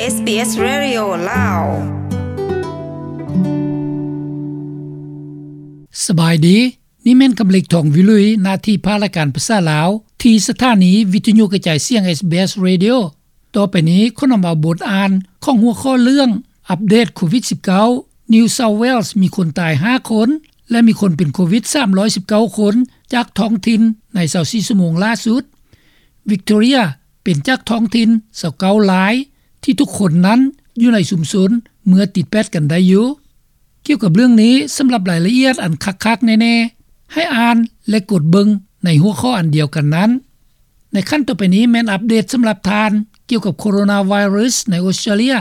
ເອສບີເອສ Radio ລາວ. ສະບາຍດີ, ນີ້ແມ່ນຄຳເລັກ ທອງວິລຸຍ, ໜ້າທີ່ພາກລາຍການພາສາລາວ ທີ່ສະຖານີວິທະຍຸກະຈາຍສຽງ ເອສບີເອສ Radio. ຕໍ່ໄປນີ້ຂໍນຳເອົາບົດອ່ານຂອງຫົວຂໍ້ເລື່ອງ ອັບເດດໂຄວິດສິບເກົ້າ New South Wales ມີຄົນຕາຍຫ້າຄົນ ແລະ ມີຄົນເປັນໂຄວິດສາມຮ້ອຍສິບເກົ້າຄົນ ຈາກທ້ອງຖິ່ນໃນຊາວສີ່ຊົ່ວໂມງລ່າສຸດ. Victoria ເປັນຈາກທ້ອງຖິ່ນຊາວເກົ້າລາຍ ທີ່ທຸກຄົນນັ້ນຢູ່ໃນຊຸມຊົນເມື່ອຕິດແປດກັນໄດ້ຢູ່. ກ່ຽວກັບເລື່ອງນີ້, ສຳລັບລາຍລະອຽດອັນຄັກໆແນ່ໆ, ໃຫ້ອ່ານ ແລະ ກົດເບິ່ງໃນຫົວຂໍ້ອັນດຽວກັນນັ້ນ. ໃນຂັ້ນຕໍ່ໄປນີ້ແມ່ນອັບເດດສຳລັບທ່ານ ກ່ຽວກັບໂຄໂຣນາໄວຣັສໃນອົດສະຕຣາເລຍ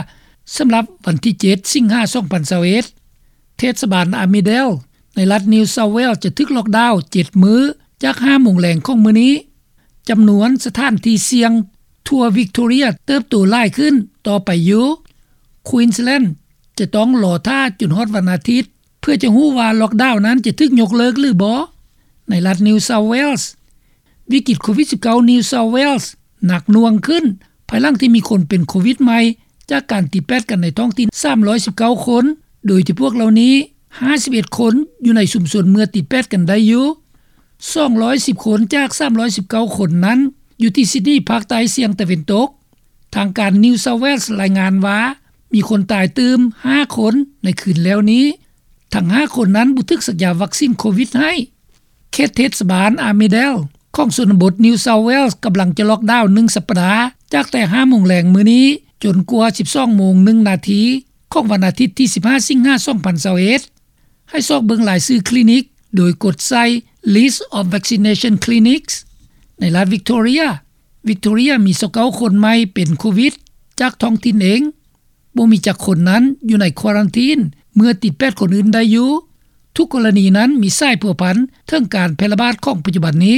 ສຳລັບວັນທີເຈັດ ສິງຫາ ສອງພັນຊາວເອັດ. ເທດສະບານ Armidale ໃນລັດ New South Wales ຈະຖືກລັອກດາວເຈັດມື້ ຈາກຫ້າໂມງແລງຂອງມື້ນີ້. ຈຳນວນສະຖານທີ່ສ່ຽງທົ່ວ Victoria ເຕີບໂຕຫຼາຍຂຶ້ນຕໍ່ໄປຢູ່. Queensland ຈະຕ້ອງລໍຖ້າຈົນຮອດວັນອາທິດ ເພື່ອຈະຮູ້ວ່າລັອກດາວນັ້ນຈະຖືກຍົກເລີກຫຼືບໍ່. ໃນລັດ New South Wales ວິກິດໂຄວິດສິບເກົ້າ New South Wales ໜັກໜ່ວງຂຶ້ນ ພາຍຫຼັງທີ່ມີຄົນເປັນໂຄວິດໃໝ່ ຈາກການຕິດແປດກັນໃນທ້ອງຖິ່ນສາມຮ້ອຍສິບເກົ້າຄົນ, ໂດຍທີ່ພວກເຫຼົ່ານີ້ ຫ້າສິບເອັດຄົນຢູ່ໃນຊຸມຊົນເມື່ອຕິດແປດກັນໄດ້ຢູ່. ສອງຮ້ອຍສິບຄົນຈາກສາມຮ້ອຍສິບເກົ້າຄົນນັ້ນ ຢູ່ທີ່ຊິດນີ ພາກໃຕ້ສ່ຽງຕາເວັນຕົກ. ທາງການ New South Wales ລາຍງານວ່າ ມີຄົນຕາຍຕື່ມຫ້າຄົນໃນຄືນແລ້ວນີ້. ທັງຫ້າຄົນນັ້ນບໍ່ຖືກສັກຢາວັກຊີນໂຄວິດໃຫ້. ເຂດເທດສະບານ Armidale ຂອງຊົນນະບົດ New South Wales ກຳລັງຈະລັອກດາວໜຶ່ງສັບປະດາ ຈາກແຕ່ຫ້າໂມງແລງມື້ນີ້ ຈົນກວ່າສິບສອງໂມງໜຶ່ງນາທີ ຂອງວັນອາທິດທີສິບຫ້າ ສິງຫາ ສອງພັນຊາວເອັດ. ໃຫ້ຊອກເບິ່ງລາຍຊື່ຄລີນິກ ໂດຍກົດໃສ່ List of Vaccination Clinics. ໃນລັດ Victoria, Victoria ມີຊາວເກົ້າຄົນໃໝ່ເປັນໂຄວິດຈາກທ້ອງຖິ່ນເອງ. ບໍ່ມີຈັກຄົນນັ້ນຢູ່ໃນຄວາຣັນທີນເມື່ອຕິດແປດຄົນອື່ນໄດ້ຢູ່. ທຸກກໍລະນີນັ້ນມີສາຍພົວພັນເຖິງການແຜ່ລະບາດຂອງປັດຈຸບັນນີ້.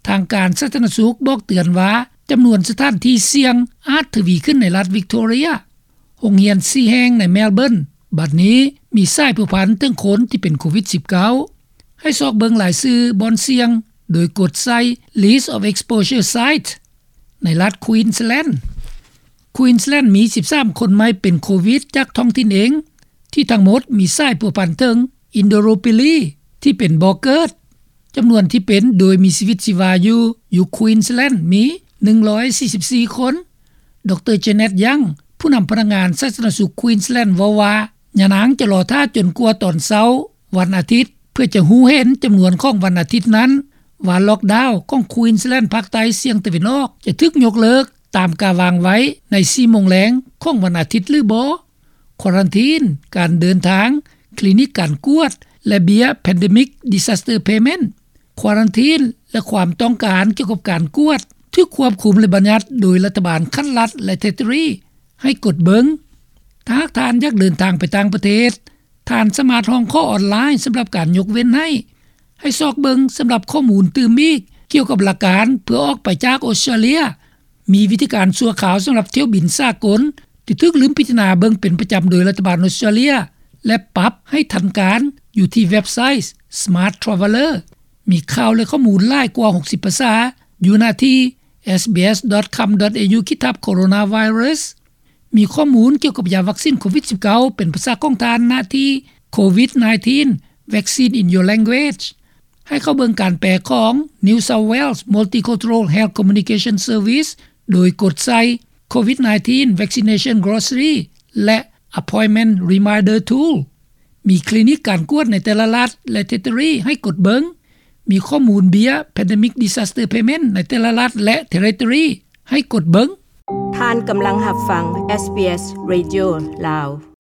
ທາງການສາທາລະນະສຸກບອກເຕືອນວ່າ ຈຳນວນສະຖານທີ່ສ່ຽງອາດທະວີຂຶ້ນໃນລັດ Victoria. ໂຮງຮຽນສີ່ແຫ່ງໃນ Melbourne ບັດນີ້ມີສາຍພົວພັນເຖິງຄົນທີ່ເປັນໂຄວິດສິບເກົ້າ. ໃຫ້ຊອກເບິ່ງລາຍຊື່ບ່ອນສ່ຽງ ໂດຍກົດໃສ່ List of Exposure Site ໃນລັດ Queensland. Queensland ມີສິບສາມຄົນໃໝ່ເປັນໂຄວິດຈາກທ້ອງຖິ່ນເອງ, ທີ່ທັງໝົດມີສາຍພົວພັນເຖິງ Indooroopilly ທີ່ເປັນບໍ່ເກີດ. ຈຳນວນທີ່ເປັນໂດຍມີຊີວິດຊີວາຢູ່ ຢູ່ Queensland ມີໜຶ່ງຮ້ອຍສີ່ສິບສີ່ຄົນ. ດຣ Janet Young ຜູ້ນຳພະນັກງານສາທາລະນະສຸກ Queensland ເວົ້າວ່າ ຍານາງຈະລໍຖ້າຈົນກວ່າຕອນເຊົ້າວັນອາທິດ ເພື່ອຈະຮູ້ເຫັນຈຳນວນຂອງວັນອາທິດນັ້ນ ວ່າລັອກດາວຂອງ Queensland ພາກໃຕ້ສ່ຽງຕາເວັນອອກ ຈະຖືກຍົກເລີກຕາມກາວາງໄວ້ໃນສີ່ໂມງແລງຂອງວັນອາທິດຫຼືບໍ່. ຄວາຣັນທີນ, ການເດີນທາງ, ຄລີນິກການກວດ ແລະ ເບ້ຍ Pandemic Disaster Payment. ຄວາຣັນທີນ ແລະ ຄວາມຕ້ອງການກ່ຽວກັບການກວດ ຖືກຄວບຄຸມ ແລະ ບັນຍັດໂດຍລັດຖະບານຂັ້ນລັດ ແລະ Territory ໃຫ້ກົດເບິ່ງ. ຖ້າຫາກທ່ານຢາກເດີນທາງໄປຕ່າງປະເທດ, ທ່ານສາມາດຮ້ອງຂໍອອນລາຍສຳລັບການຍົກເວັ້ນໃຫ້. ໃຫ້ຊອກເບິ່ງສຳລັບຂໍ້ມູນຕື່ມອີກກ່ຽວກັບຫຼັກການເພື່ອອອກໄປຈາກອົດສະຕຣາເລຍ. ມີວິທີການຊົ່ວຄາວສຳລັບຖ້ຽວບິນສາກົນທີ່ຖືກລືມພິຈາລະນາເບິ່ງເປັນປະຈຳໂດຍລັດຖະບານອົດສະຕຣາເລຍ ແລະ ປັບໃຫ້ທັນການຢູ່ທີ່ເວັບໄຊ Smart Traveller. ມີຂ່າວ ແລະ ຂໍ້ມູນຫຼາຍກວ່າຫົກສິບພາສາ ຢູ່ໜ້າທີ່ SBS.com.au ຂີດທັບ Coronavirus. ມີຂໍ້ມູນກ່ຽວກັບຢາວັກຊີນໂຄວິດສິບເກົ້າ ເປັນພາສາຂອງທ່ານ ນະທີ່ COVID nineteen Vaccine in Your Language. ໃຫ້ເຂົ້າເບິ່ງການແປຂອງ New South Wales Multicultural Health Communication Service ໂດຍກົດໃສ່ COVID nineteen Vaccination Glossary ແລະ Appointment Reminder Tool. ມີຄລີນິກການກວດໃນແຕ່ລະລັດ ແລະ Territory ໃຫ້ກົດເບິ່ງ. ມີຂໍ້ມູນເບ້ຍ Pandemic Disaster Payment ໃນແຕ່ລະລັດ ແລະ Territory ໃຫ້ກົດເບິ່ງ. ທ່ານກຳລັງຮັບຟັງ SBS Radio ລາວ.